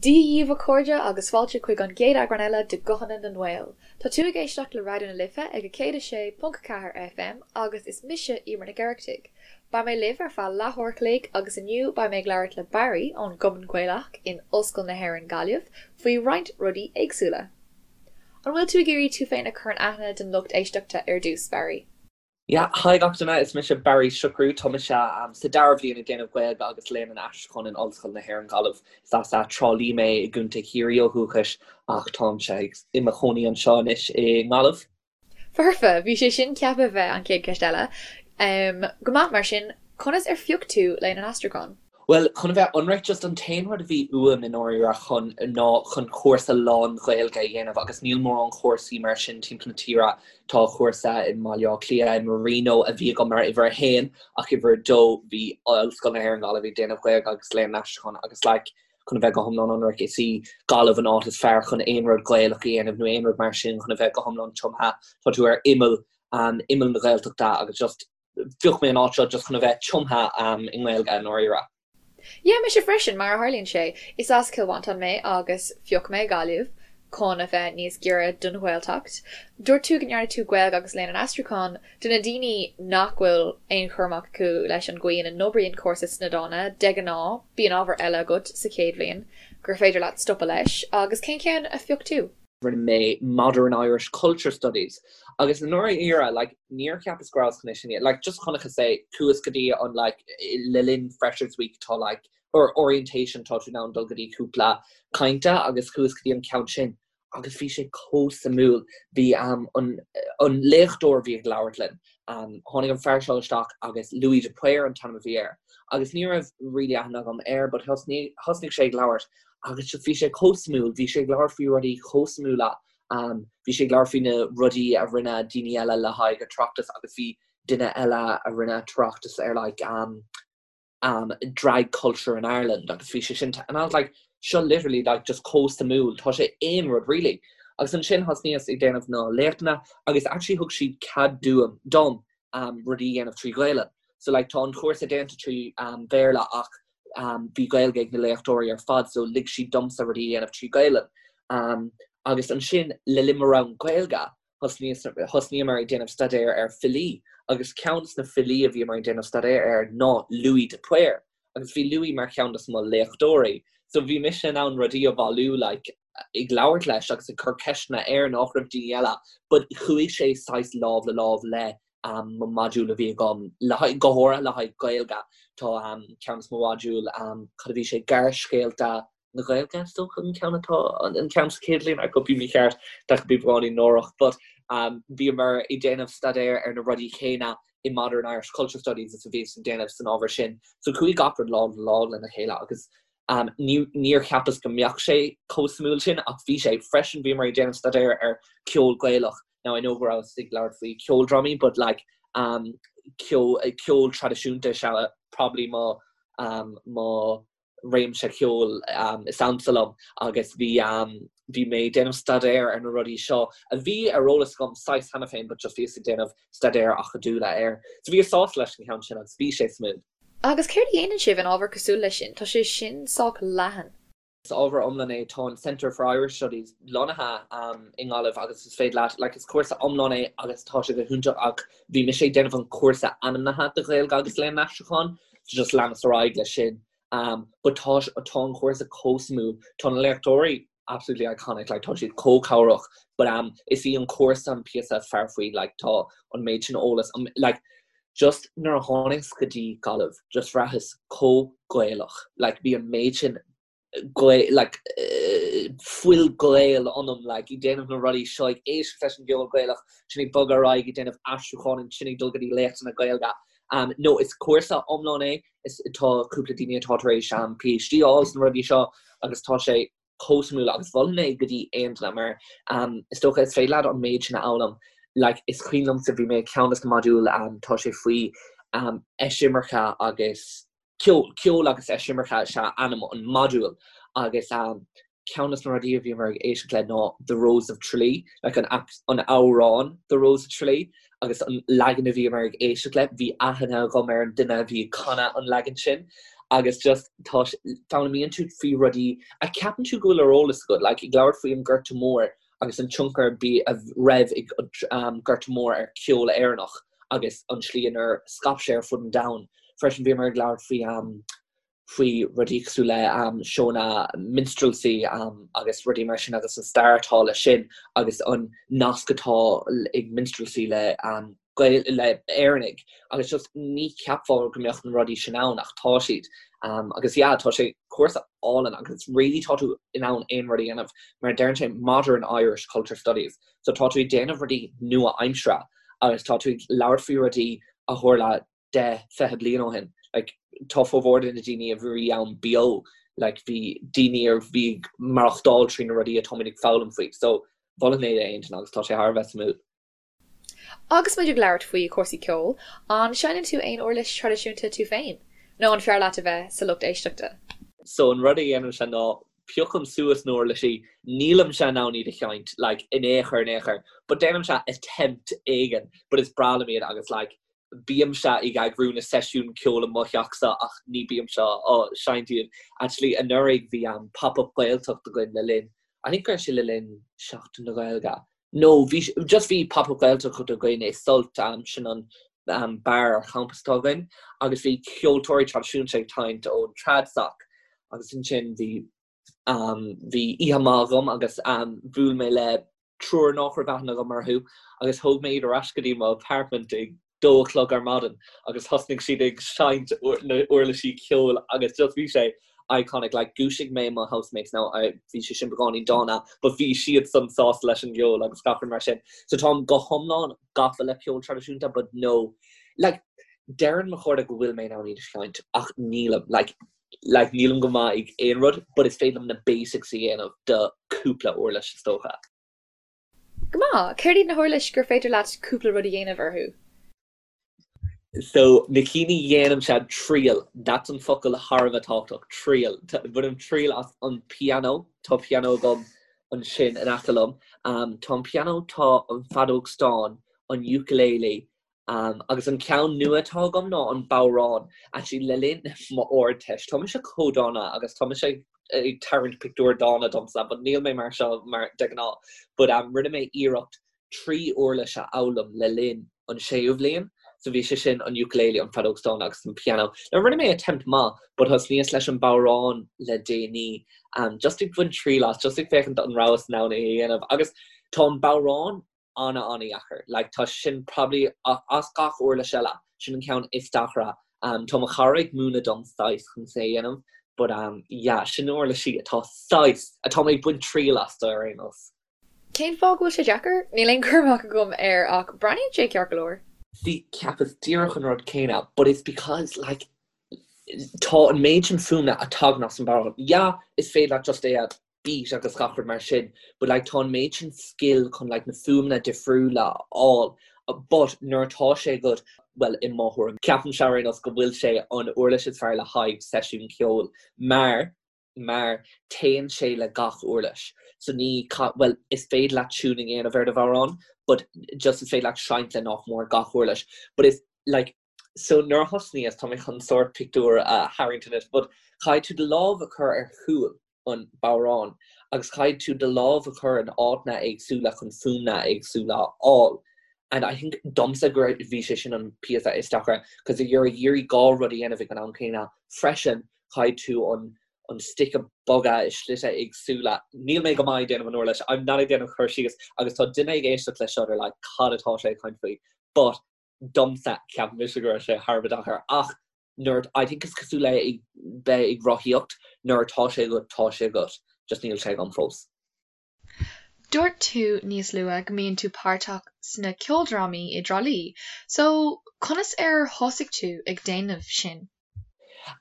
Dia dhaoibh a chairde agus fáilte chuig an gcéad eagrán eile de Guthanna na nGael. Tá tú ag éisteacht le Raidió na Life ag 106.4 FM agus is mise Emer Nic Oireachtaigh. Beidh mé libh ar feadh leathuair a chloig agus inniu beidh mé ag labhairt le Barry ón gCumann Gaelach in Ollscoil na hÉireann Gaillimh faoi roinnt rudaí éagsúla. An bhfuil tú ag iarraidh tú féin a chur in aithne don lucht éisteachta ar dtús, Barry? Yeah, hi gach duine, is mise Barry Siochrú, tá mise sa dara bhliain ag déanamh Gaeilge agus Léann an Aistriúcháin in Ollscoil na hÉireann Gaillimh. Is as Trá Lí mé i gContae Chiarraí ó dhúchais ach táimse i mo chónaí anseo anois i nGaillimh. Foirfe! Bhí sé sin ceaptha bheith an chéad cheist eile. Go maith, mar sin, conas ar phioc tú Léann an Aistriúcháin? Bhuel, chun a bheith ionraic, just an t-aon rud a bhí uaim i ndáiríre chun ná chun cúrsa lán-Ghaeilge a dhéanamh agus níl mórán cúrsaí mar sin timpeall na tíre. Tá cúrsa i mBaile Átha Cliath, i Marino, a bhí agam mar uimhir a haon ach uimhir a dó bhí Ollscoil na hÉireann Gaillimh ag déanamh Gaeilge agus Léann an Aistriúcháin agus like chun a bheith go hiomlán ionraic is í Gaillimh an áit is fearr chun aon rud Gaelach a dhéanamh nó aon rud mar sin chun a bheith go hiomlán tumtha. Tá tú ar imeall, imeall na Gaeltachta agus just Phioc mé an áit seo just chun a bheith tumtha i nGaeilge i ndáiríre. Yeah, mise freisin, mar a tharlaíonn sé. Is as Cill Mhantáin mé agus phioc mé Gaillimh chun a bheith níos giorra don Ghaeltacht. Dúirt tú go ndearna tú Gaeilge agus Léann an Aistriúcháin. Do na daoine nach bhfuil aon chur amach acu leis an gcaoi ina n-oibríonn cúrsa sna dána, de ghnáth, bíonn ábhar eile agat sa chéad bhliain gur féidir leat stopadh leis, agus cén ceann a phioc tú? Rinne mé Modern Irish Culture Studies agus i ndáiríre like níor cheapas go rabhas chun é sin like just chonacthas é chuas go dtí an like le linn Freshers Week tá like or orientation tá tú in ann dul go dtí cúpla cainte agus chuas go dtí an ceann sin agus bhí sé chomh suimiúil bhí um, an, an léachtóir a bhí ag labhairt linn um, tháinig an fear seo isteach agus Louis de Paor an t-ainm a bhí air agus ní raibh really aithne agam air but thosnaigh thosnaigh sé ag labhairt Agus bhí sé chomh suimiúil, bhí sé ag labhairt faoi rudaí chomh suimiúla, bhí sé ag labhairt faoi na rudaí a rinne daoine eile le haghaidh a tráchtas agus bhí duine eile a rinne tráchtas ar like um, um, drag culture in Ireland agus bhí sé sin and I was like seo literally like just chomh suimiúil, tá sé aon rud really. Agus ansin thosnaíos ag déanamh na léachtanna agus actually thug siad cead dúm dom um, rudaí a dhéanamh trí Ghaelainn. So like tá an chúrsa déanta trí um, Bhéarla ach bhí Gaeilge ag na léachtóirí ar fad so lig siad domsa rudaí a dhéanamh trí Ghaelainn. Agus ansin le linn mo rang Gaeilge thosnaíomar ag déanamh staidéar ar filí agus ceann des na filí a bhíomar ag déanamh staidéar air ná Louis de Paor agus bhí Louis mar cheann des mo léachtóirí so bhí mise in ann rudaí a bhailiú like ag labhairt leis agus ag cur ceisteanna air nach raibh daoine eile but chuaigh sé saghas lámh le lámh le mo module a bhí agam le haghaidh, go háirithe le haghaidh Gaeilge. Tá ceann des mo mhodúil, cad a bhí sé, Gearrscéalta na Gaeilge, is dócha an ceann atá, an ceann sa chéad bhliain, I could be mícheart, that could be beagáinín náireach, but bhíomar ag déanamh staidéar ar na rudaí céanna i Modern Irish Culture Studies is a bhíos ag déanamh san ábhar sin. So chuaigh gach rud lámh le lámh lena chéile agus Níor cheapas go mbeadh sé chomh suimiúil sin ach bhí sé. Freisin bhíomar ag déanamh staidéar ar ceol Gaelach. Now I know go rabhas ag labhairt faoi ceoldrámaí but like um, ceol, ceol traidisiúnta is ea probably mo, um, mo réimse ceoil um, is ansa liom agus bhí um, bhí mé ag déanamh staidéar ar na rudaí seo a bhí ar eolas agam saghas cheana féin but just bhíos ag déanamh staidéar acadúla air. So bhíos sásta leis an cheann sin agus bhí sé suimiúil. Agus céard a dhéanann sibh in ábhar cosúil leis sin? Tá sé sin sách leathan. Is ábhar iomlán é, tá an Centre for Irish Studies lonnaithe i nGaillimh agus is féidir leat, like is cúrsa iomlán é agus tá sé go hiontach ach bhí mise ag déanamh an cúrsa ainmnithe de Ghaeilge agus Léann an Aistriúcháin so just leanas ar aghaidh leis sin. But tá tá an cúrsa chomh suimiúil, tá na léachtóirí absolutely iconic, like tá siad chomh cabhrach but um is í an cúrsa an píosa is fearr faoi, like tá an méid sin eolas, um like just nuair a tháinig go dtí Gaillimh just bhraitheas chomh Gaelach, like bhí an méid sin Gael like fuil Gael ionam like ag déanamh na rudaí seo ag éisteacht leis an gceol Gaelach, sin ag bogadh ar aghaidh ag déanamh aistriúcháin ansin ag dul go dtí léachtanna Gaeilge. Um no is cúrsa iomlán é, is tá cúpla daoine atá tar éis um PhD a fháil sna rudaí seo agus tá sé chomh suimiúil agus mholfainn é go dtí aon duine mar um is dócha is féidir leat an méid sin a fhoghlaim like is cuimhin liomsa bhí mé ag ceann des na modúil um tá sé faoi um eisimirce agus ceol, ceol agus eisimirce is ea ainm an modúil agus um ceann des na rudaí a bhíomar ag éisteacht le ná The Rose of Tralee, like an an amhrán The Rose of Tralee agus an leagan a bhíomar ag éisteacht le, bhí aithne agam ar an duine a bhí ag canadh an leagan sin. Agus just tá foghlaimíonn tú faoi rudaí a ceapann tú go bhfuil ar eolas agat, like ag labhairt faoi an Gorta Mór agus an tionchar a bhí a raibh ag an Gorta Mór ar ceol Éireannach agus an slí inar scaip sé ar fud an domhain. Freisin bhíomar ag labhairt faoi faoi rudaí cosúil le seónna minstrelsy agus rudaí mar sin agus an stair atá leis sin agus an nasc atá ag minstrelsy le Gael le Éireannaigh agus just ní cheapfá go mbeadh na rudaí sin ann ach tá siad. Agus yeah tá sé cúrsa álainn agus really tá tú in ann aon rud a dhéanamh mar deireann sé Modern Irish Culture Studies so tá tú ag déanamh rudaí nua-aimseartha agus tá tú ag labhairt faoi rudaí a tharla 10, 20 bliain ó shin. Like, tá formhór de na daoine a bhí ann beo, like, bhí daoine a bhí ag maireachtáil trí na rudaí atáimid ag foghlaim faoi. So, mholfainn é d'aon duine agus tá sé thar a bheith suimiúil. Agus muid ag labhairt faoi chúrsaí ceoil, an seinneann tú aon uirlis traidisiúnta tú féin? Nó an fearr leat a bheith sa lucht éisteachta? So an rud a dhéanaimse ná piocaim suas na huirlisí, nílimse in ann iad a sheinnt, like, in aon chor in aon chor, but déanaimse attempt éigin, but is breá liom iad agus like, bímse ag eagrú na seisiún ceoil i mo theachsa ach ní bímse á seinnt iad. Actually anuraidh bhí an Pop-Up Gaeltacht againn le linn, I think go raibh sé le linn Seachtain na Gaeilge. No, bhí, just bhí Pop-Up Gaeltacht againn i Sult, sin an beár ar champas atá againn, agus bhí ceoltóirí traidisiúnta ag tarraingt ón Tradsoc agus ansin bhí bhí oíche maith agam agus bhuail mé le triúr nach raibh aithne agam orthu agus thóg mé iad ar ais go dtí mo apartment ag dó a chlog ar maidin agus thosnaigh siad ag seinnt na uirlisí ceoil agus just bhí sé iconic like dhúisigh mé mo housemates now bhí sé sin beagáinín dána but bhí siad san sásta leis an gceol agus gach rud mar sin so táim go hiomlán gafa le ceol traidisiúnta but no like deireann mo chairde go bhfuil mé in ann iad a sheinnt ach nílim like like nílim go maith ag aon rud but is féidir liom na basics a dhéanamh do cúpla uirlis is dócha. Go maith! Céard iad na huirlis gur féidir leat cúpla rud a dhéanamh orthu? So na cinn a dhéanaimse triail, that's an focal thar a bheith tábhachtach, triail. Bainim triail as an pianó, tá pianó agam ansin in aice liom. Tá an pianó, tá an feadóg stáin, an ukulele, Agus an ceann nua atá agam ná an bodhrán. Actually, le linn m'Ardteist, tá mise chomh dána agus tá mise ag tarraingt pictiúr dána domsa, but níl mé mar seo mar de ghnáth. But rinne mé iarracht 3 uirlis a fhoghlaim le linn an séú bhliain. So bhí sé sin an ukulele, an feadóg stáin agus an piano. Now rinne mé attempt maith, but thosnaíos leis an bodhrán le déanaí. Just ag baint triail as, just ag féachaint an rabhas in ann é a dhéanamh. Agus tá an bodhrán ana ana-dheacair. Like tá sin probably as gach uirlis eile, sin an ceann is deacra. Um, tá mo chara ag múineadh dom saghas chun é a dhéanamh, but um, yeah, sin na uirlisí atá saghas, atá mé ag baint triail astu ar aon nós. Cén fáth go bhfuil sé deacair? Níl aon chur amach agam air ach breathnaíonn sé ceart go leor. See, cheapas díreach an rud céanna, but it's because like tá an méid sin fuaimne a tagann as an bodhrán. Yeah, is féidir leat just é a beat agus gach rud mar sin but like tá an méid sin skill chun like na fuaimeanna difriúla a fháil but nuair atá sé agat well i mo thuairim ceapaimse ar aon nós go bhfuil sé an uirlis is fearr le haghaidh seisiún ceoil mar mar téann sé le gach uirlis so ní well is féidir leat tuning a dhéanamh ar do bhodhrán but just is féidir leat seinnt le nach mór gach uirlis but is like So nuair a thosnaíos, tá mé chun sórt pictiúr a tharraingt anois, but caithfidh tú do lámh a chur ar chúl an bodhráin agus caithfidh tú do lámh a chur in áiteanna éagsúla chun fuaimneanna éagsúla a fháil. And I think domsa go raibh, bhí sé sin an píosa is deacra, cos you're ag iarraidh dhá rud a dhéanamh ag an am céanna freisin, caithfidh tú an an stick a bhogadh i slite éagsúla. Níl mé go maith ag déanamh an uirlis, I'm not ag déanamh cur síos agus tá duine ag éisteacht leis seo they're like cad atá sé ag caint faoi? But domsa, ceapaim mise go raibh sé thar a bheith deacair ach nuair, I think is cosúil le ag bheith ag rothaíocht, nuair atá sé agat, tá sé agat, just níl sé agam fós. Dúirt tú níos luaithe go mbíonn tú páirteach sna ceoldrámaí i dTrá Lí, so conas ar thosaigh tú ag déanamh sin?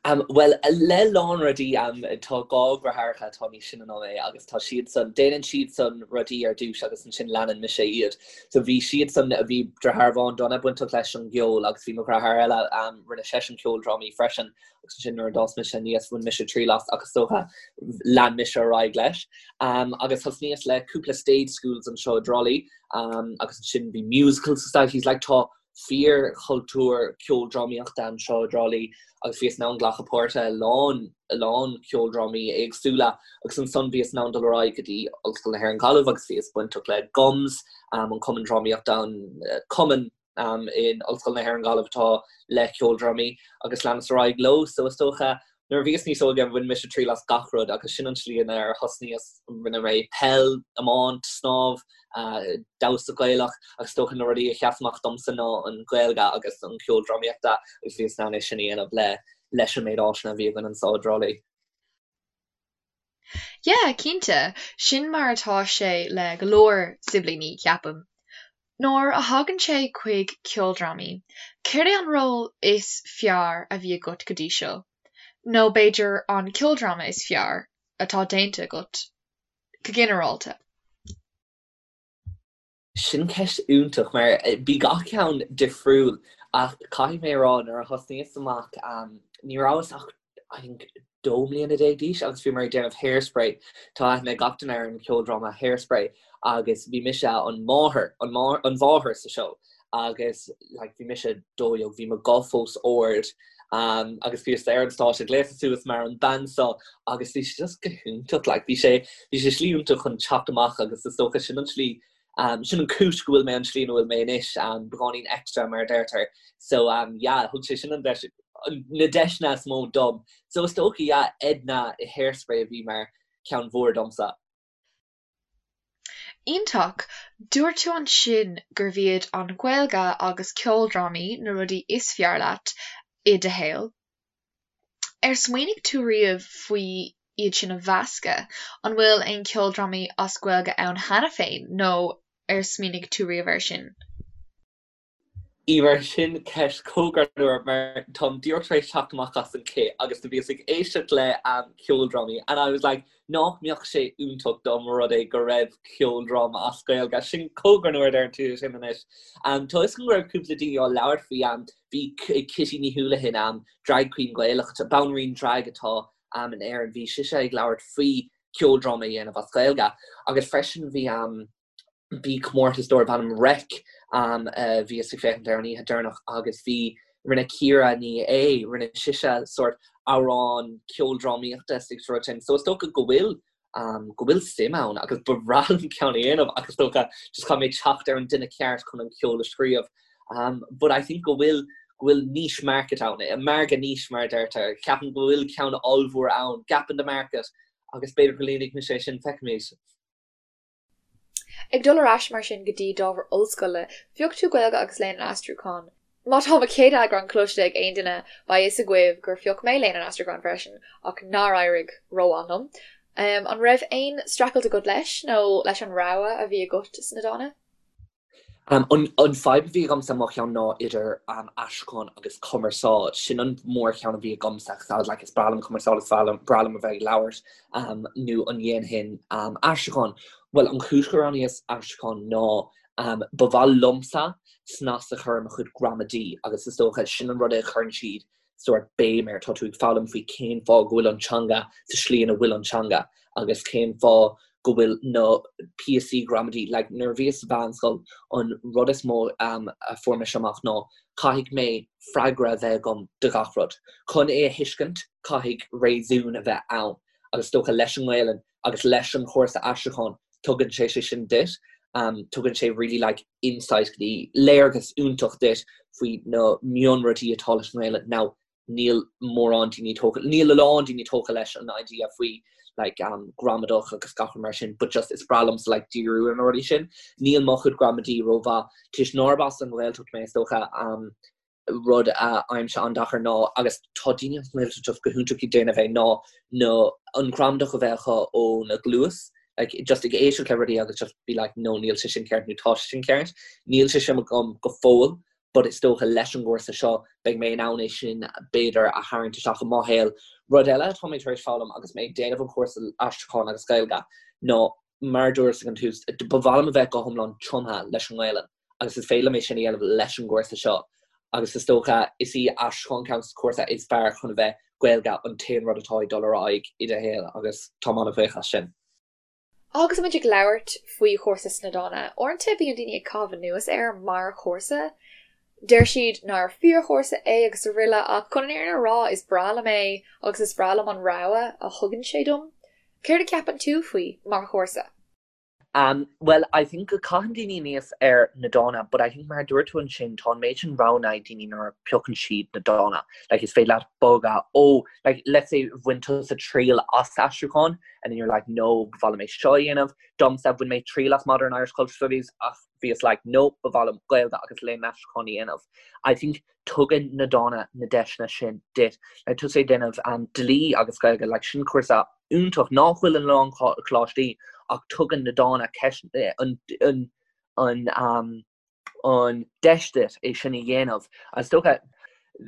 Bhuel, le lán rudaí, tá dhá dheartháireacha atá níos sine ná mé agus tá siadsan, déanann siadsan rudaí ar dtús agus ansin leanann mise iad. So bhí siadsan, bhí deartháir amháin Donna bainteach leis an gceol agus bhí mo dheartháir eile, rinne seisean ceoldrámaí freisin agus ansin nuair a d'fhás mise aníos bhain mise triail as agus is dócha lean mise ar aghaidh leis. Agus thosnaíos le cúpla stage schools anseo i dTrá Lí agus ansin bhí musical societies, like tá. Fíorchultúr ceoldrámaíochta anseo i dTrá Lí agus bhíos in ann glacadh páirte i lán, a lán ceoldrámaí éagsúla agus ansan bhíos in ann dul ar aghaidh go dtí Ollscoil na hÉireann Gaillimh agus bhíos bainteach le GUMS, an cumann drámaíochta, an cumann in Ollscoil na hÉireann Gaillimh atá le ceoldrámaí agus leanas ar aghaidh leo. So is dócha Nuair a bhíos níos óige bhain mise triail as gach rud agus sin an tslí inar thosnaíos. Rinne mé peil, iomáint, snámh, damhsa Gaelach agus is dócha na rudaí a sheas amach domsa ná an Ghaeilge agus an ceol drámaíochta agus bhíos in ann é sin a dhéanamh le leis an méid áiseanna a bhí againn anseo i dTrá Lí. Yeah, cinnte. Sin mar atá sé le go leor siblíní, ceapaim. Nuair a thagann sé chuig ceoldrámaí, céard é an ról is fearr a bhí agat go dtí seo? Nó b'fhéidir an ceoldráma is fearr atá déanta agat, go ginearálta? Sin ceist iontach mar bhí gach ceann difriúil ach caithfidh mé a rá nuair a thosnaíos amach ní rabhas ach I think 12 mbliana d'aois agus bhíomar ag déanamh Hairspray. Tá aithne ag gach duine ar an cheoldráma Hairspray agus bhí mise an máthair, an mháthair sa seó agus like bhí mise 12, bhí mo guth fós ard um, agus bhíos ar an stáitse gléasta suas mar an bean seo agus bhí sé just go hiontach like bhí sé bhí sé slí iontach chun teacht amach agus is dócha sin an slí um, sin an cúis go bhfuil mé an slí ina bhfuil mé anois um, beagáinín extra mar a deirtear so um, yeah thug sé sin an deis na deiseanna is mó dom so is dócha yeah Edna i Hairspray a bhí mar ceann mhór domsa. Iontach! Dúirt tú ansin gurbh iad an Ghaeilge agus ceoldrámaí na rudaí is fearr leat i do shaol. Ar smaoinigh tú riamh faoi iad sin a mheascadh? An bhfuil aon cheoldrámaí as Gaeilge ann cheana féin nó ar smaoinigh tú riamh air sin? Emer, sin ceist chomh greannmhar mar táim díreach tar éis teacht amach as an cith agus do bhíos ag éisteacht le ceoldrámaí and I was like nach mbeadh sé iontach dá mba rud é go raibh ceoldráma as Gaeilge. Sin chomh greannmhar a deireann tú sin anois. Tá fhios agam go raibh cúpla daoine á labhairt faoi, bhí Kitty Ní Houlihan, drag queen Gaelach, banríon drag atá in Éirinn, bhí sise ag labhairt faoi ceoldráma a dhéanamh as Gaeilge agus freisin bhí bhí comórtas darb ainm Reic a bhíos ag féachaint air an oíche deireanach agus bhí, rinne Ciara Ní É, rinne sise sórt amhrán ceoldrámaíochta is rud sin. So is dócha go bhfuil, go bhfuil suim ann agus ba bhreá liom ceann a dhéanamh ach is dócha just caithfidh mé teacht ar an duine ceart chun an ceol a scríobh. But I think go bhfuil, go bhfuil niche market ann, margadh niche mar a deirtear. Ceapaim go bhfuil ceann ollmhór ann, gap in the market agus b'fhéidir go líonfaidh mise é sin, feicfimid. Ag dul ar ais mar sin go dtí d'ábhar ollscoile, phioc tú Gaeilge agus Léann an Aistriúcháin. Má tá mo chéad eagrán cloiste ag aon duine, beidh fhios agaibh gur phioc mé Léann an Aistriúcháin freisin, ach nár éirigh rómhaith liom. An raibh aon streachailt agat leis, nó leis an rogha a bhí agat sna dána? An fadhb a bhí agamsa mo cheann ná idir aistriúchán agus cumarsáid. Sin an mórcheann a bhí agamsa agus I was like is breá liom cumarsáid, is breá liom a bheith ag labhairt nó an ndéanfainn aistriúchán. Bhuel an chúis gur roghnaíos aistriúchán ná ba mhaith liomsa snas a chur ar mo chuid gramadaí agus is dócha sin an rud a chuireann siad sórt béim air, tá tú ag foghlaim faoi cén fáth go bhfuil an teanga sa slí ina bhfuil an teanga agus cén fáth go bhfuil na píosaí gramadaí, like nuair a bhíos sa mheánscoil an rud is mó a fuair mise amach ná caithfidh mé freagra a bheith agam do gach rud. Chun é a thuiscint caithfidh réasún a bheith ann agus is dócha leis an nGaelainn agus leis an chúrsa aistriúcháin tugann sé sé sin duit, tugann sé really like insight go dtí léargas iontach duit faoi na mionrudaí atá leis an nGaelainn. Now níl mórán daoine tógtha, níl a lán daoine tógtha leis an idea faoi like um, gramadach agus gach rud mar sin, but just is breá liomsa like díriú ar na rudaí sin. Níl mo chuid gramadaí rómhaith, toisc nárb as an nGaeltacht mé is dócha um, rud a fhaighimse an-deacair ná, agus tá daoine as an nGaeltacht just go hiontach ag déanamh é, ná na an ghramadach a bheith acu óna gcluas, like just ag éisteacht le rudaí agus just be like no níl sé sin ceart nó tá sé sin ceart. Níl sé sin agam go fóill but is dócha leis an gcúrsa seo beidh mé in ann é sin b'fhéidir a tharraingt isteach i mo shaol. Rud eile atá mé tar éis foghlaim agus mé ag déanamh an chúrsa aistriúcháin agus Gaeilge ná mar a dúras ag an tús, ba mhaith liom a bheith go hiomlán tumtha leis an nGaelainn. agus is féidir liom é sin a dhéanamh leis an gcúrsa seo agus is dócha is í aistriúchán ceann de na cúrsa is fearr chun a bheith Gaeilge an t-aon rud atá ag dul ar aghaidh i do shaol agus táim an-bhuíoch as sin. Agus muid ag labhairt faoi chúrsa sna dána, uaireanta bíonn daoine ag caitheamh anuas air mar chúrsa. Deir siad nár fíorchúrsa é agus araile ach chun an fhírinne a rá is breá liom é agus is breá liom an rogha a thugann sé dom. Céard a cheapann tú faoi mar chúrsa? Um well I think go caitheann daoine aníos ar na Dána but I think mar a dúirt tú ansin tá an méid sin roghanna ag daoine nuair a piocann siad na Dána. Like is féidir leat bogadh ó like let's say bhain tusa triail as aistriúchán and then you're like no ba mhaith liom é seo a dhéanamh. Domsa bhain mé triail as Modern Irish Culture Studies ach bhíos like no ba mhaith liom Gaeilge agus Léann an Aistriúcháin a dhéanamh. I think tugann na Dána na deiseanna sin duit. Like tusa ag déanamh um, dlí agus Gaeilge, like sin cúrsa iontach nach bhfuil in a lán coláistí ach tugann na Dána ceist eh, an, an, an, um, an deis duit é sin a dhéanamh. Is dócha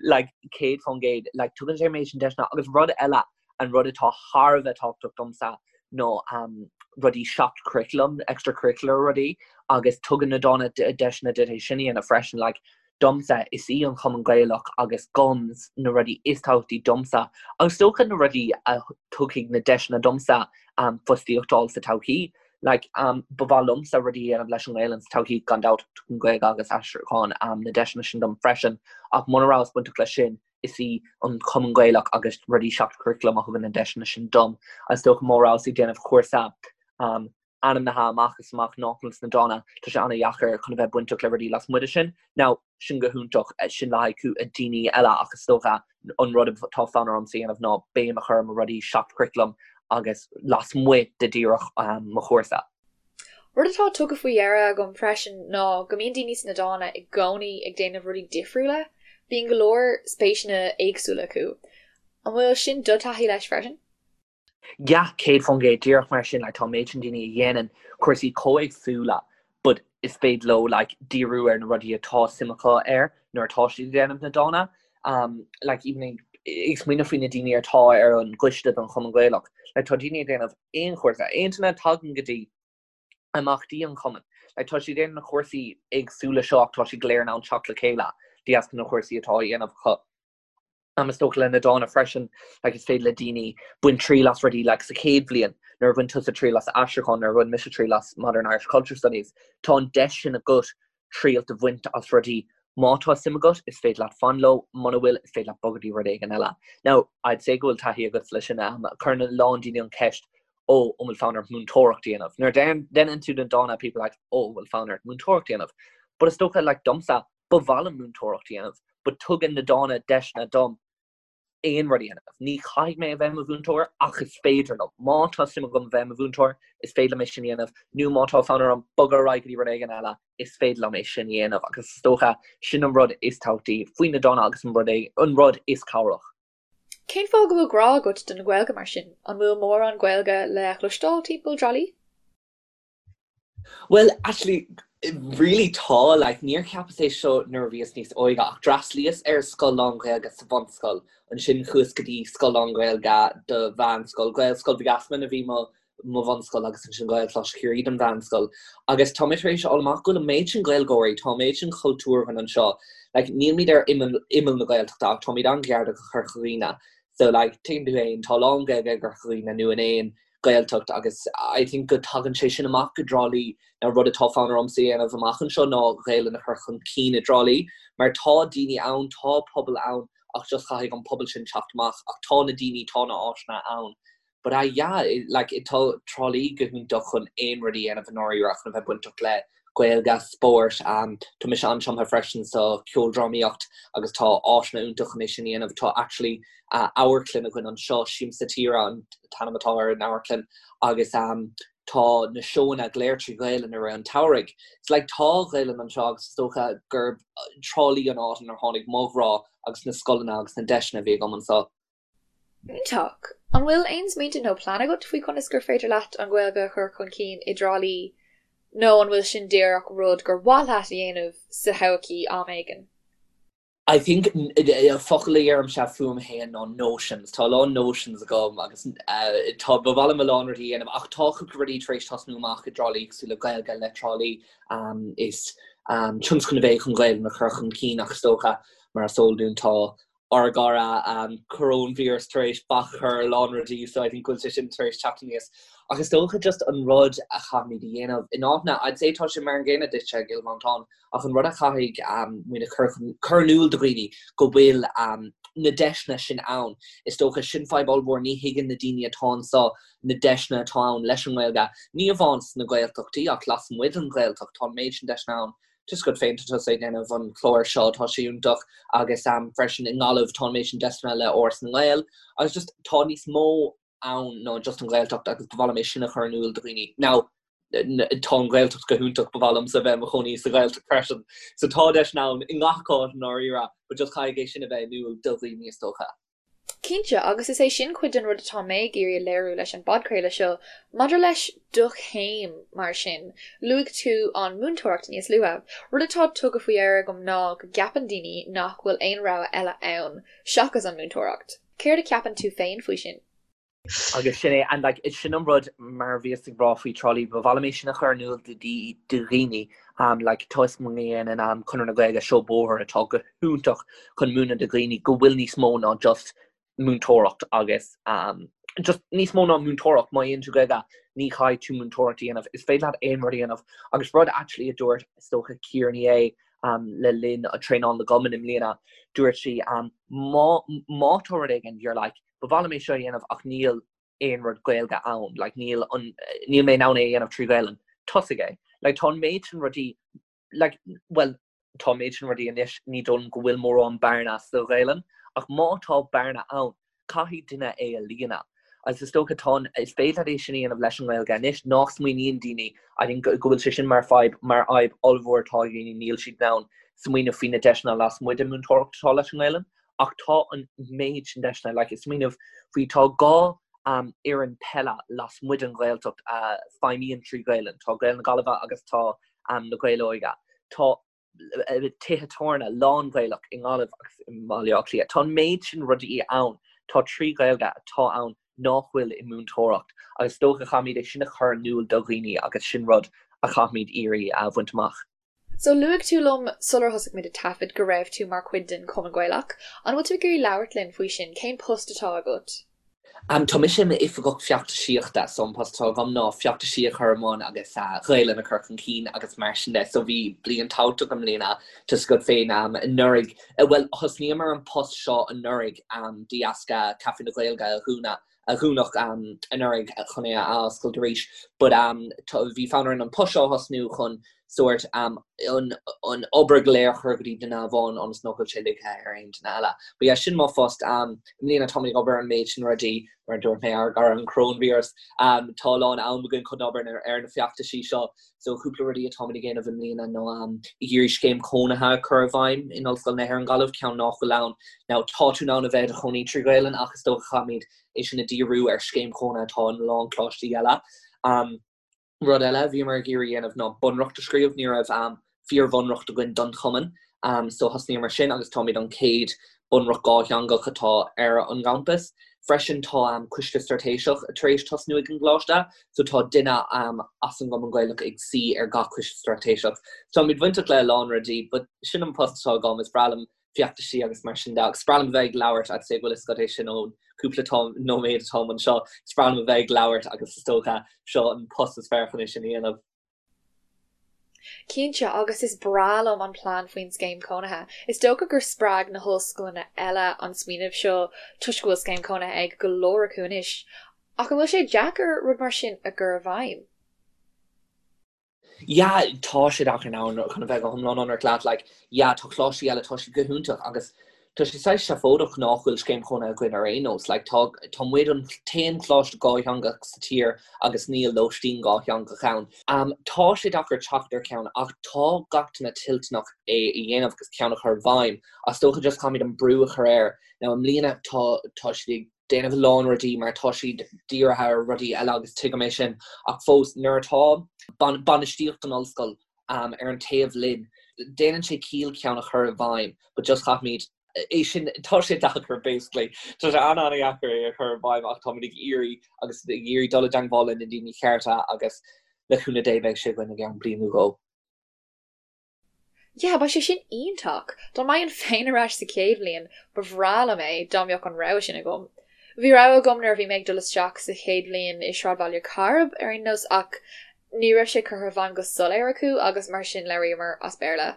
like 100% like tugann sé an méid sin deiseanna agus rud eile an rud atá thar a bheith tábhachtach domsa ná um, rudaí seach-churaclam, extracurricular rudaí agus tugann na Dána deiseanna duit é sin a dhéanamh freisin like Domsa, is í an Chumann Gaelach agus GUMS na rudaí is tábhachtaí domsa agus is dócha na rudaí a tugfaidh na deiseanna domsa fostaíocht a fháil sa todhchaí. Like, ba mhaith liomsa rudaí a dhéanamh leis an nGaelainn sa todhchaí, gan dabht, tugann Gaeilge agus aistriúchán na deiseanna sin dom freisin, ach muna rabhas bainteach leis sin, is í an Cumann Gaelach agus rudaí seach-churaclaim a thugann na deiseanna sin dom. Is dócha má rabhas ag déanamh cúrsa ainmnithe amach is amach nach bhfuil sna Dána, tá sé an-dheacair chun a bheith bainteach le rudaí lasmuigh de sin. Now, sin go hiontach, sin le haghaidh daoine eile ach is dócha an rud atá fonn ormsa a dhéanamh ná béim a chur ar mo rudaí seach-churaclaim agus lasmuigh de díreach mo chúrsa. Rud atá tugtha faoi deara agam freisin ná go mbíonn daoine sna Dána i gcónaí ag déanamh rudaí difriúla, bíonn go leor spéiseanna éagsúla acu. An bhfuil sin do thaithí leis freisin? Yeah, 100%, díreach mar sin, like, tá an méid sin daoine a dhéanann cúrsaí chomh éagsúla but is féidir leo like, díriú ar na rudaí atá suim acu air nuair atá siad ag déanamh na Dána. Um, like, even ag, ag smaoineamh faoi na daoine atá ar an gcoiste don Chumann Gaelach, like, tá daoine ag déanamh aon chúrsa, aon duine a tagann go dtí imeachtaí an chumainn. Like, tá siad ag déanamh na cúrsaí éagsúla seo ach tá siad go léir in ann teacht le chéile de dheasca na cúrsaí atá á dhéanamh acu. Is dócha le na Dána freisin, like is féidir le daoine baint triail as rudaí like sa chéad bhliain, nuair a bhain tusa triail as aistriúchán, nuair a bhain mise triail as Modern Irish Culture Studies, tá an deis sin agat triail a bhaint as rudaí. Má tá suim agat, is féidir leat fan leo, muna bhfuil, is féidir leat bogadh dtí rud éigin eile. Now, I'd say go bhfuil taithí agat leis sin, cuireann a lán daoine an cheist, oh, an bhfuil fonn ort múinteoireacht a dhéanamh? Nuair a deineann tú na Dána, people are like, oh, an bhfuil fonn ort múinteoireacht a dhéanamh? But is dócha, like, domsa, Ba mhaith liom múinteoireacht a dhéanamh, but tugann na Dána deiseanna dom aon rud a dhéanamh. Ní chaithfidh mé a bheith i mo mhúinteoir, ach is féidir liom. Má tá suim agam a bheith i mo mhúinteoir, is féidir liom é sin a dhéanamh, nó má tá fonn orm bogadh ar aghaidh go dtí rud éigin eile, is féidir liom é sin a dhéanamh. Agus is dócha, sin an rud is tábhachtaí faoi na Dána agus an rud é, an rud is cabhrach. Cén fáth go bhfuil grá agat don Ghaeilge mar sin? An bhfuil mórán Gaeilge le chloisteáil timpeall Trá Lí? Well, actually, really tá, like, níor cheapas é seo nuair a bhíos níos óige ach d'fhreastlaíos ar scoil lán-Ghaeilge sa bhunscoil, ansin chuas go dtí scoil lán-Ghaeilge do mheánscoil, Gaelscoil Mhic Easmainn a bhí mo mo bhunscoil agus ansin Gaelcholáiste Chiarraí don mheánscoil. Agus tá mé tar éis a fháil amach go bhfuil an méid sin Gaeilgeoirí, tá an méid sin cultúr againn anseo, like, nílmid ar imeall imeall na Gaeltachta ach táimid an-ghar do Chorca Dhuibhne. So, like, tuigeann tú féin, tá a lán Gaeilge i gCorca Dhuibhne nó in aon Gaeltacht agus I think go dtagann sé sin amach go dTrá Lí. Now rud atá fonn ormsa a dhéanamh amach anseo ná Gaelainn a chur chun cinn i dTrá Lí mar tá daoine ann, tá pobal ann ach just caithfidh an pobal sin teacht amach ach tá na daoine, tá na áiseanna ann. But ah yeah, like tá Trá Lí go hiontach chun aon rud a dhéanamh i ndáiríre chun a bheith bainteach le Gaeilge, spórt, tá mise an-tumtha freisin sa cheoldrámaíocht agus tá áiseanna iontach chun é sin a dhéanamh. Tá actually amharclann againn anseo, Siamsa Tíre an t-ainm atá ar an amharclann agus tá na seóanna go léir trí Ghaelainn i rith an tsamhraidh. It's like tá Gaelainn anseo agus is dócha gurb Trá Lí an áit inar tháinig mo ghrá agus na scoileanna agus na deiseanna a bhí agam anseo. Iontach! An bhfuil aon smaointe nó plean agat faoi conas gur féidir leat an Ghaeilge a chur chun cinn i dTrá Lí nó an bhfuil sin díreach rud gur mhaith leat a dhéanamh sa todhchaí am éigin? I think focal a dheirimse fúm féin ná notions. Tá a lán notions agam agus tá ba mhaith liom a lán rudaí a dhéanamh ach tá cúpla rudaí tar éis tosnú amach i dTrá Lí cosúil le Gaeilge le Trá Lí. Is tionscnamh é chun Gaeilge a chur chun cinn ach is dócha mar is eol dúinn tá. Ár gcara coróinvíreas tar éis bac a chur ar a lán rudaí so I think go bhfuil sé sin tar éis teacht aníos. Ach is dócha just an rud a chaithfimid a dhéanamh in áiteanna, I'd say tá sé mar an gcéanna duitse i gCill Mhantáin, ach an rud a chaithfidh muid a chur chun, cur in iúl do dhaoine go bhfuil na deiseanna sin ann. Is dócha sin fadhb ollmhór, ní thuigeann na daoine atá anseo na deiseanna atá ann leis an nGaeilge, ní amháin sna Gaeltachtaí ach lasmuigh den Ghaeltacht, tá an méid sin deiseanna ann. Tá a fhios agat féin tá tusa ag déanamh an clár seo, tá sé iontach agus freisin i nGaillimh tá an méid sin deiseanna le Áras na nGael agus just tá níos mó ann ná just an Ghaeltacht agus ba mhaith liom é sin a chur in iúl do dhaoine. Now tá an Ghaeltacht go hiontach, ba mhaith liomsa bheith i mo chónaí sa Ghaeltacht freisin. So tá deiseanna ann i ngach áit i ndáiríre but just caithfidh é sin a bheith in iúl do dhaoine is dócha. Cinnte, agus is é sin cuid den rud atá mé ag iarraidh a léiriú leis an bpodchraoladh seo. Maidir leis do chéim, mar sin, luaigh tú an múinteoireacht níos luaithe. Rud atá tugtha faoi deara agam ná go gceapann daoine nach bhfuil aon rogha eile ann seachas an múinteoireacht. Céard a cheapann tú féin faoi sin? Agus sin é, and like, sin an rud mar a bhíos ag rá faoi Trá Lí, ba mhaith liom é sin a chur in iúl do dhaoine, like, tá a fhios agam go ndéanann Conradh na Gaeilge seó bóthair atá go hiontach chun múineadh do dhaoine go bhfuil níos mó ná just múinteoireacht agus just níos mó ná múinteoireacht, má dhéanann tú Gaeilge ní chaithfidh tú múinteoireacht a dhéanamh, is féidir leat aon rud a dhéanamh agus rud actually a dúirt is dócha Ciara Ní É le linn traenáil na gcumann i mbliana, dúirt sí má má tá rud éigin you're like ba mhaith liom é seo a dhéanamh ach níl aon rud Gaeilge ann, like níl an níl mé in ann é a dhéanamh trí Ghaelainn, tosaigh é. Like tá an méid sin rudaí like bhuel tá an méid sin rudaí anois, ní dóigh liom go bhfuil mórán bearna sa Ghaelainn, ach má tá bearna ann, caithfidh duine é a líonadh. Agus is dócha tá an, is féidir leat é sin a dhéanamh leis an nGaeilge anois, nach smaoiníonn daoine, I think go bhfuil sé sin mar fadhb, mar fhadhb ollmhór atá ag daoine, níl siad in ann smaoineamh faoi na deiseanna lasmuigh den mhúinteoireacht atá leis an nGaelainn. Ach tá an méid sin deiseanna, like ag smaoineamh faoi, tá 2 fhoireann peile lasmuigh den Ghaeltacht a feidhmíonn trí Ghaelainn, tá Gaeil na Gaillimhe agus tá na Gaeil Óige. Tá tithe tábhairne lán-Ghaelach i nGaillimh agus i mBaile Átha Cliath. Tá an méid sin rudaí ann, tá trí Ghaeilge atá ann nach bhfuil i múinteoireacht agus is dócha caithfimid é sin a chur in iúl do dhaoine agus sin rud a chaithfimid iarraidh a bhaint amach. So luaigh tú liom sular thosaigh muid ag taifead go raibh tú mar chuid den Chumann Gaelach. An bhfuil tú ag iarraidh labhairt linn faoi sin? Cén post atá agat? Tá mise i m'oifigeach feachtasaíochta, so an post atá agam ná feachtaisí a chur i mbun agus Gaelainn a chur chun cinn agus mar sin de. So bhí bliain tábhachtach i mbliana, tá a fhios agat féin anuraidh, bhuel thosnaíomar an post seo anuraidh de dheasca Caife na Gaeilge a dhúnadh a dúnadh anuraidh chun é a athoscailt arís but bhí fonn orainn an post seo a thosnú chun sórt an obair go léir a chur go dtí duine amháin ionas nach bhfuil sé ligthe ar aon duine eile. But yeah, sin mo phost. I mbliana táimid ag obair ar an méid sin rudaí, mar a dúirt mé, ár gcara an coróinvíreas. Tá a lán am againn chun obair ar na feachtaisí seo. So cúpla rudaí atáimid ag déanamh i mbliana ná ag iarraidh scéim cónaithe a chur i bhfeidhm in Ollscoil na hÉireann Gaillimh, ceann nach bhfuil ann. Now tá tú in ann a bheith i do chónaí trí Ghaelainn ach is dócha caithfimid é sin a dhíriú ar scéim chónaithe atá in a lán coláistí eile. Rud eile a bhíomar ag iarraidh a dhéanamh ná bunreacht a scríobh, ní raibh fíor-bhunreacht againn don chumann so thosnaíomar sin agus táimid an chéad bunreacht dhátheangach atá ar an gcampas. Freisin tá coiste straitéiseach tar éis tosnú ag an gcoláiste so tá duine as an gCumann Gaelach ag suí ar gach coiste straitéiseach. So táimid bainteach le a lán rudaí but sin an post atá agam, is breá liom feachtaisí agus mar sin de agus is breá liom a bheith ag labhairt I'd say go bhfuil a fhios agat é sin ón cúpla nóiméad atáim anseo, is breá liom a bheith ag labhairt agus is dócha seo an post is fearr chun é sin a dhéanamh. Cinnte, agus is breá liom an plean faoin scéim cónaithe. Is dócha gur spreag na hollscoileanna eile an smaoineamh seo toisc go bhfuil scéim cónaithe ag go leor acu anois. Ach an bhfuil sé deacair rud mar sin a chur i bhfeidhm? Yeah, tá sé deacair now chun a bheith go hiomlán ionraic leat, like, yeah, tá coláistí eile, tá siad go hiontach agus Tá sé saghas seafóideach nach bhfuil scéim chónaithe againn ar aon nós. Like, tá, tá muid an t-aon choláiste dhátheangach sa tír agus níl lóistín dhátheangach ann. Um, tá sé deacair teacht ar cheann ach tá gach duine toilteanach é a dhéanamh agus ceann a chur i bhfeidhm. Ach is dócha just caithfimid an brú a chur air. Now, i mbliana tá, tá siad ag déanamh a lán rudaí mar tá siad dírithe ar rudaí eile agus tuigim é sin ach fós nuair atá bainistíocht an ollscoil ar an taobh linn, déanann sé ciall ceann a chur i bhfeidhm but just caithfimid é sin, tá sé deacair basically, tá sé an-an-dheacair é a chur i bhfeidhm ach táimid ag iarraidh agus ag iarraidh dul i dteangmháil le na daoine cearta agus le cúnamh Dé beidh sé againn i gceann bliain nó dhó. Yeah, beidh sé sin iontach! Dá mbeinn féin ar ais sa chéad bhliain, ba bhreá liom é dá mbeadh an rogha sin agam. Bhí rogha agam nuair a bhí mé ag dul isteach sa chéad bhliain i Sráidbhaile Chairb, ar aon nós, ach ní raibh sé curtha i bhfeidhm go soiléir acu agus mar sin labhraíomar as Béarla.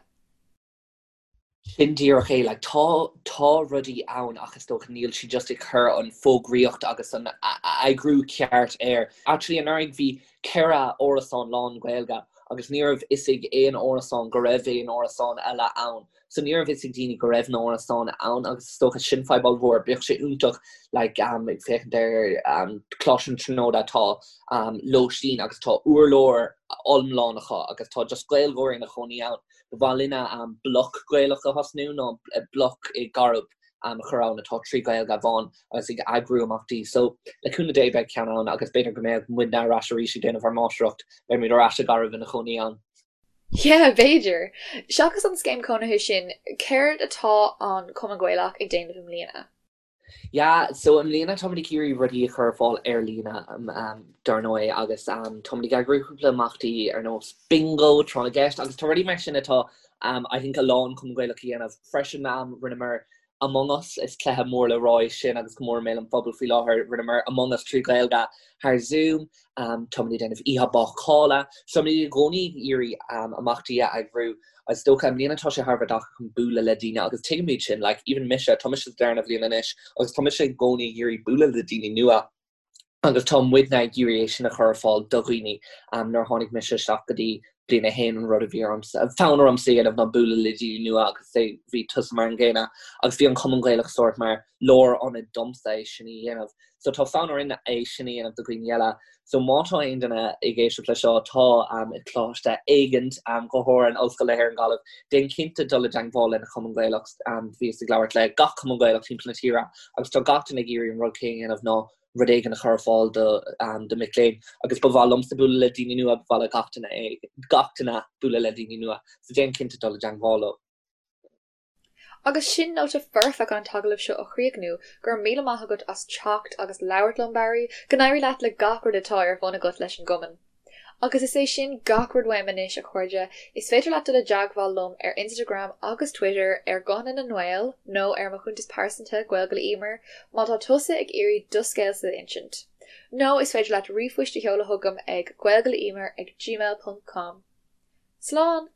Sin díreach é, like, tá, tá rudaí ann ach is dócha níl siad just ag cur an fógraíocht agus an eagrú ceart air. Actually anuraidh bhí 4 árasán lán Gaeilge agus ní raibh fhios ag aon árasán go raibh aon árasán eile ann. So ní raibh fhios ag daoine go raibh na árasáin ann agus is dócha sin fadhb ollmhór. Bheadh sé iontach like, um, ag féachaint ar um, Coláiste na Tríonóide tá um, lóistín agus tá urlár iomlán acu agus tá just Gaeilgeoirí ina chónaí ann. Ba mhaith linne bloc Gaelach a thosnú nó bloc i gCairb a chur ann atá 3 Gaeilge amháin agus ag eagrú imeachtaí. So le cúnamh Dé beidh ceann ann agus b'fhéidir go mbeadh muidne ar ais arís ag déanamh ár máistreacht, beidh muid ar ais i gCairb ina chónaí ann. Yeah, b'fhéidir. Seachas an scéim cónaithe sin, céard atá an Cumann Gaelach ag déanamh i mbliana? Yeah, so i mbliana táimid ag iarraidh rudaí a chur ar fáil ar líne, dar ndóigh, agus táimid ag eagrú cúpla imeachtaí ar nós bingo, tráth na gceist, agus tá rudaí mar sin atá I think a lán Cumann Gaelach a dhéanamh. Freisin rinneamar Among Us, is cluiche mór le rá é sin agus go mór i mbéal an phobail faoi láthair, rinneamar Among Us 3 Ghaeilge thar Zoom. Táimid ag déanamh oíche bácála. So táimid i gcónaí ag iarraidh imeachtaí a eagrú. Is dócha i mbliana tá sé thar a bheith deacair chun bualadh le daoine agus tuigimid sin, like even mise, tá mise sa darna bhliain anois agus tá mise i gcónaí ag iarraidh bualadh le daoine nua agus tá muidne ag iarraidh é sin a chur ar fáil do dhaoine. Nuair a tháinig mise isteach go dtí bliain a haon an rud a bhí ormsa, fonn ormsa a dhéanamh ná bualadh le daoine nua agus bhí tusa mar an gcéanna agus bhí an Cumann Gaelach sórt mar lárionad domsa é sin a dhéanamh. So tá fonn orainn é sin a dhéanamh do dhaoine eile. So má tá aon duine ag éisteacht le seo atá i gcoláiste éigint, go háirithe in Ollscoil na hÉireann Gaillimh, déan cinnte dul i dteangmháil lena Chumann Gaelach. Bhíos ag labhairt le gach Cumann Gaelach timpeall na tíre agus tá gach duine ag iarraidh an rud céanna a dhéanamh ná rud éigin a chur ar fáil do do mic léinn. Agus ba mhaith liomsa bualadh le daoine nua, ba mhaith le gach duine é, gach duine bualadh le daoine nua. So déan cinnte dul i dteangmháil leo. Agus sin nóta foirfe chun an t-agallamh seo a chríochnú, go raibh míle maith agat as teacht agus labhairt liom, Barry. Go n-éirí leat le gach rud atá ar bun agat leis an gcumann. Agus is é sin gach rud uaim anois, a chairde. Is féidir leat dul i dteagmháil liom ar Instagram agus Twitter ar Guthanna na nGael nó ar mo chuntas pearsanta, Gaeilge le Emer, má tá tusa ag iarraidh do scéalsa a insint. Nó is féidir leat ríomhphoist a sheoladh chugam ag gaeilgeleemer ag gmail ponc com. Slán!